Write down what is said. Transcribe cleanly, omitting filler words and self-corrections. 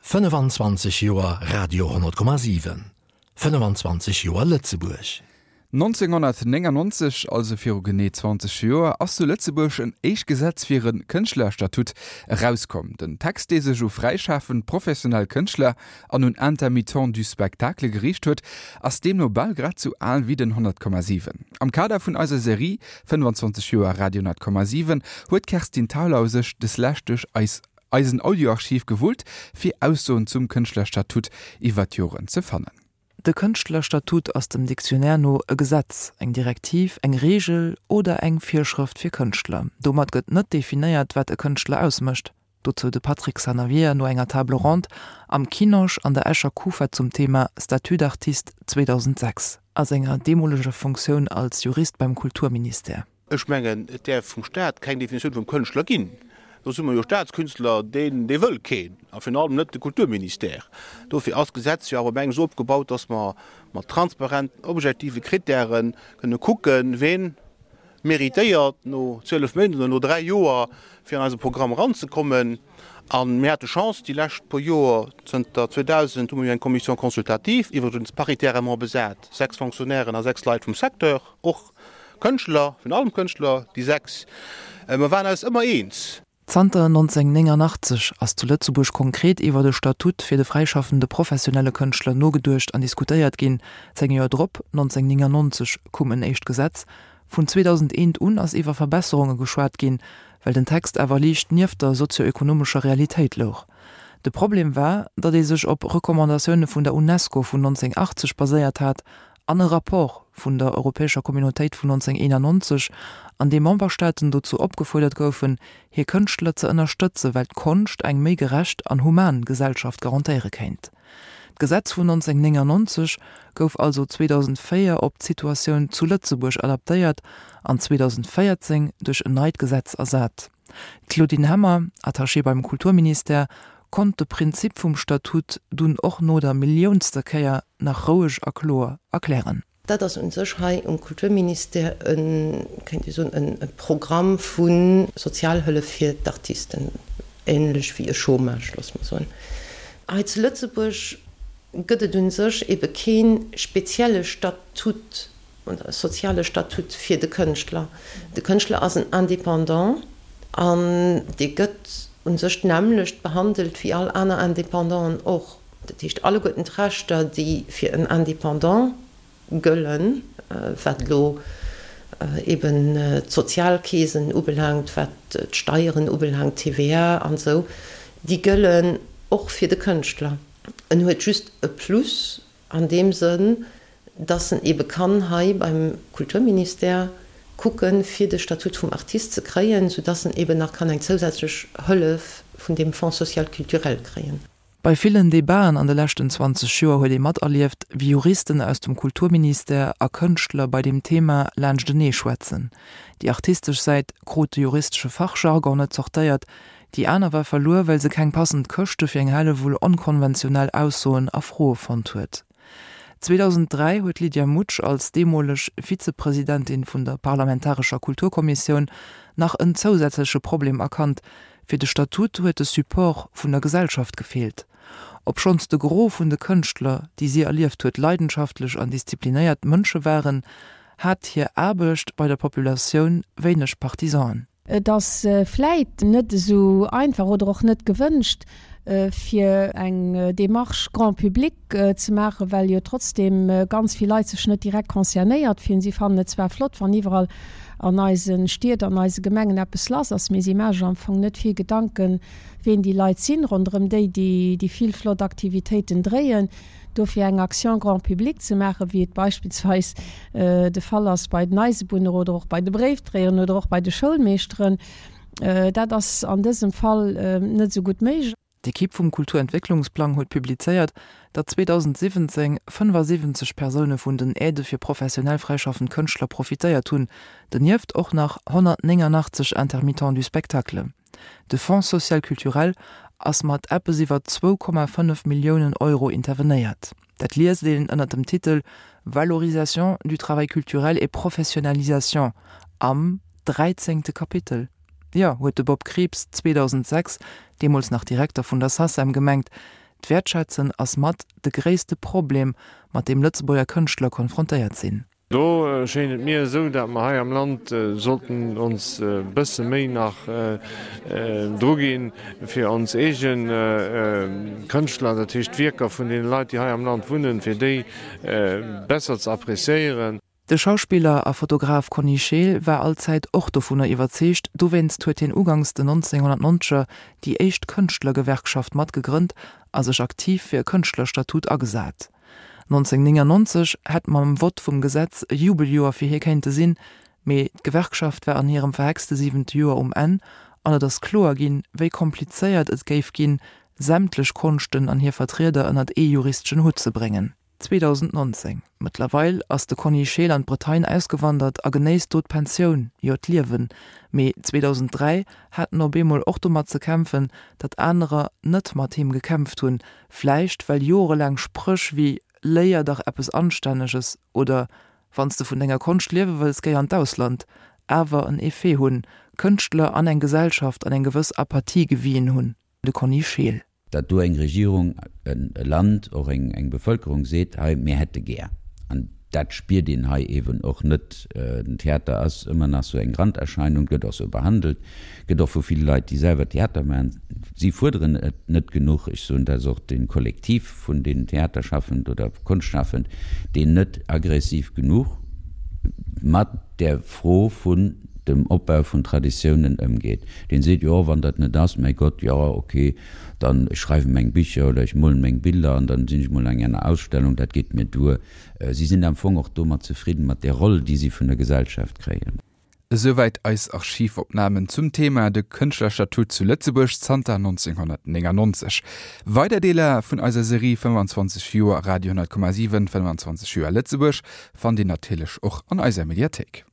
25 Joer Radio 10,7, 25 Joer Lëtzebuerg. 1999, also viru genee 20 Joer, ass zu Lëtzebuerg en éischt Gesetz fir e Kënschtlerstatut erauskomm. Den Text, dee sech u fräischafend professionell Kënschtler an un Intermittents du spectacle geriicht huet, ass deemno bal grad sou al wéi den 100,7. Am Kader vun eiser Serie 25 Joer Radio 10,7 huet d'Kerstin Thalau sech deslescht duerch eis eisen Audioarchiv gewullt, fir Aussoen zum Kënschtlerstatut iwwer d'Joren ze fannen. De Kënschtlerstatut ass dem Dictionnaire no e Gesetz, eng Direktiv, eng Reegel oder eng Virschrëft fir Kënschtler. Domat gëtt net definéiert, wat e Kënschtler ausmécht. Dozou de Patrick Sanavia no enger Table ronde am Kinosch an der Escher Kufa zum Thema Statut d'artiste 2006 a senger deemoleger Funktioun als Jurist beim Kulturministère. Ech mengen, et däerf vum Staat keng Definitioun vum Kënschtler ginn. Do si mer jo Staatskünstler, deen, dee wëll keen, a virun allem net de Kulturministère. Dofir ass d'Gesetz jo awer op engem esou opgebaut, dass mer mat transparenten, objektive Krittäre kënne kucken, ween méritéiert no 12 Méint oder no dräi Joer, fir an eise Programm eranzekommen. A mir hate Chance, déi lescht puer Joer, zënter 2000 hu mer jo eng Commission consultative, iwwregens paritairement besat, sechs Fonctionnairen a sechs Leit vum Secteur, och Kënschtler, virun allem Kënschtler, déi 6, mer waren eis ëmmer eens. Zanter 1989 ass zu Lëtzebuerg konkret iwwer e Statut fir de fräischaffende professionelle Kënschtler nogeduecht an diskutéiert ginn. 10 Joer drop, 1999, koum en éischt Gesetz. Vun 2001 un ass iwwer Verbesserunge geschwat ginn, well den Text awer liicht nieft der sozioekonomescher Realitéit louch. De Problem war, datt ee sech op Recommandatioune vun der Unesco vun 1980 baséiert hat an e Rapport vun der Europäescher Communautéit vun 1991, an deem Memberstaaten dozou opgefuerdert goufen, hir Kënschtler ze ënnerstëtzen, well d'Konscht eng méi gerecht an human Gesellschaft garantéiere kéint. D'Gesetz vun 1999 gouf also 2004 op d'Situatioun zu Lëtzebuerg adaptéiert an 2014 duerch en neit Gesetz ersat. D'Claudine Hemmer, Attachée beim Kulturministère, konnt de Prinzip vum Statut dunn och no der milliounster Kéier nach roueg a kloer erklären. Dat ass u sech hei um Kulturministère e, kéint ee soen, e Programm vu Sozialhëllef fir d'Artisten, ähnlech wéi e Chômage, loosse mer soen. Hei zu Lëtzebuerg gëtt et u sech ebe kee spezielle Statut soziale Statut fir de Kënschtler. De Kënschtler ass en Indépendant an dee gëtt u sech d'nämmlecht behandelt wéi all aner Indépendanten och. Dat heescht, alleguerten d'Rechter, déi fir en Indépendant gëllen, wat elo eben d'Sozialkeesen ubelaangt, wat d'Steieren ubelaangt, d'TVA an esou, déi gëllen och fir de Kënschtler. En huet just e Plus An deem Sënn, dass en ebe kann hei beim Kulturministère kucken, fir de Statut vum Artiste ze kréien, soudass en eben nach kann eng zousätzlech Hëllef vun deem Fonds social culturel kréien. Bei villen Debaten an de leschten 20 Joer huet ee materlieft, wéi Juristen aus dem Kulturministère a Kënschtler bei deem Thema laanschtenee schwätzen. Déi artistesch Säit krut de juristesche Fachjargon net zortéiert, Déi aner war verluer, well se keng passend Këschte fir eng Hellewull onkonventionell Aussoen a Froe fonnt huet. 2003 huet d'Lydia Mutsch als deemoleg Vizepresidentin vun der parlamentarescher Kulturkommissioun nach en zousätzleche Problem erkannt, Fir de Statut huet de Support vun der Gesellschaft gefeelt. Obschonns de Gros vun de Kënschtler, déi si erlieft huet, leidenschaftlech an disziplinéiert Mënsche waren, hat hir Aarbecht bei der Populatioun wéineg Partisanen. Et ass vläit net esou einfach oder och net gewënscht, fir eng Démarche grand public ze maachen, well jo trotzdem ganz vill Leit sech net direkt concernéiert fillen. Si fannen et zwar flott, wann iwwerall an eise Stied, an eise Gemengen eppes lass ass, mee si maache sech am Fong net vill Gedanken, ween déi Leit sinn, ronderëm déi déi vill flott Aktivitéiten dréien. Dofir eng Action grand public ze maachen, wéi et beispillsweis de Fall ass bei den Eisebunner oder och bei de Bréifdréieren oder och bei de Schoulmeeschteren, dat ass an dësem Fall net esou gutt méiglech. D'Ekipp vum Kulturentwécklungsplang huet publizéiert, datt 2017 75 Persoune vun den Aidë fir professionell fräischaffend Kënschtler profitéiert hunn, donieft och nach 189 Intermittents du spectacle. De Fonds social culturel ass mat eppes iwwer 2,5 Milliounen Euro intervenéiert. Dat liest een ënner dem Titel Valorisation du travail culturel et professionnalisation am dräizéngte Kapitel. Jo, huet de Bob Krieps 2006, deemools nach Direkter vun der SACEM, gemengt. D'Wäertschätzen ass mat de gréisste Problem, mat deem Lëtzebuerger Kënschtler konfrontéiert sinn. Do schéint et mir esou, dat mer hei am Land sollten ons e bësse méi nach druginn, fir ons eege Kënschtler, dat heescht d'Wierker vun deene Leit, déi hei am Land wunnen, fir déi besser ze appréciéieren. De Schauspiller a Fotograf Conny Scheel war allzäit och dovunner iwwerzeegt, dowéinst huet hien ugangs den 1990er déi éischt Kënschtlergewerkschaft mat gegrënnt a sech aktiv fir e Kënschtlerstatut agesat. 1999 hätt mam Vott vum Gesetz e Jubeljoer fir hie kéinte sinn, mee d'Gewerkschaft war an hirem verhexte siwente Joer um Enn an et ass kloer ginn, wéi komplizéiert et géif ginn, sämtlech Konschten an hir Vertrieder ënnert ee juristeschen Hutt ze bréngen. 2019. Mëttlerweil ass de Conny Scheel an d'Bretagne ausgewandert a genéisst do d'Pensioun, jo d'Liewen. Mee 2003 hat en op eemol och domat ze kämpfen, datt anerer net mat him gekämpft hunn, vläicht well jorelaang Spréch wéi Léier dach eppes Anstänneges oder Wann s de vun denger Konscht liewe wëlls, géi an d'Ausland awer en Effet hunn, Kënschtler an eng Gesellschaft an eng gewëss Apathie gewien hunn. De Conny Scheel. Datt do eng Regierung, e Land, och eng Bevëlkerung seet, hei mir hätte gär, an dat spiert een hei eeben och net, den Theater ass ëmmer nach sou eng Randerscheinung, gëtt och sou behandelt, gëtt och vu ville Leit, déi selwer Theater maachen, si fuerderen et net genuch, ech soen, dat ass och de Kollektiv vun den Theaterschaffend oder Konschtschafend, deen net aggressiv genuch mat där Fro vun dem Opbau vun Traditiounen ëmgeet, deen seet, jo wann dat net ass, mäi Gott, jo ok, dann ech schreiwe meng Bicher oder ech molen meng Biller an dann sinn ech mol an enger Ausstellung, dat geet mir duer. Si sinn am Fong och domat zefridden, mat där Roll, déi si vun der Gesellschaft kréien. Esouwäit eis Archivopnamen zum Thema De Kënschtlerstatut zu Lëtzebuerg zanter 1999. Weider Deeler vun eiser Serie 25 Joer Radio 10,7, 25 Joer Lëtzebuerg fannt Dir natierlech och an eiser Mediathéik.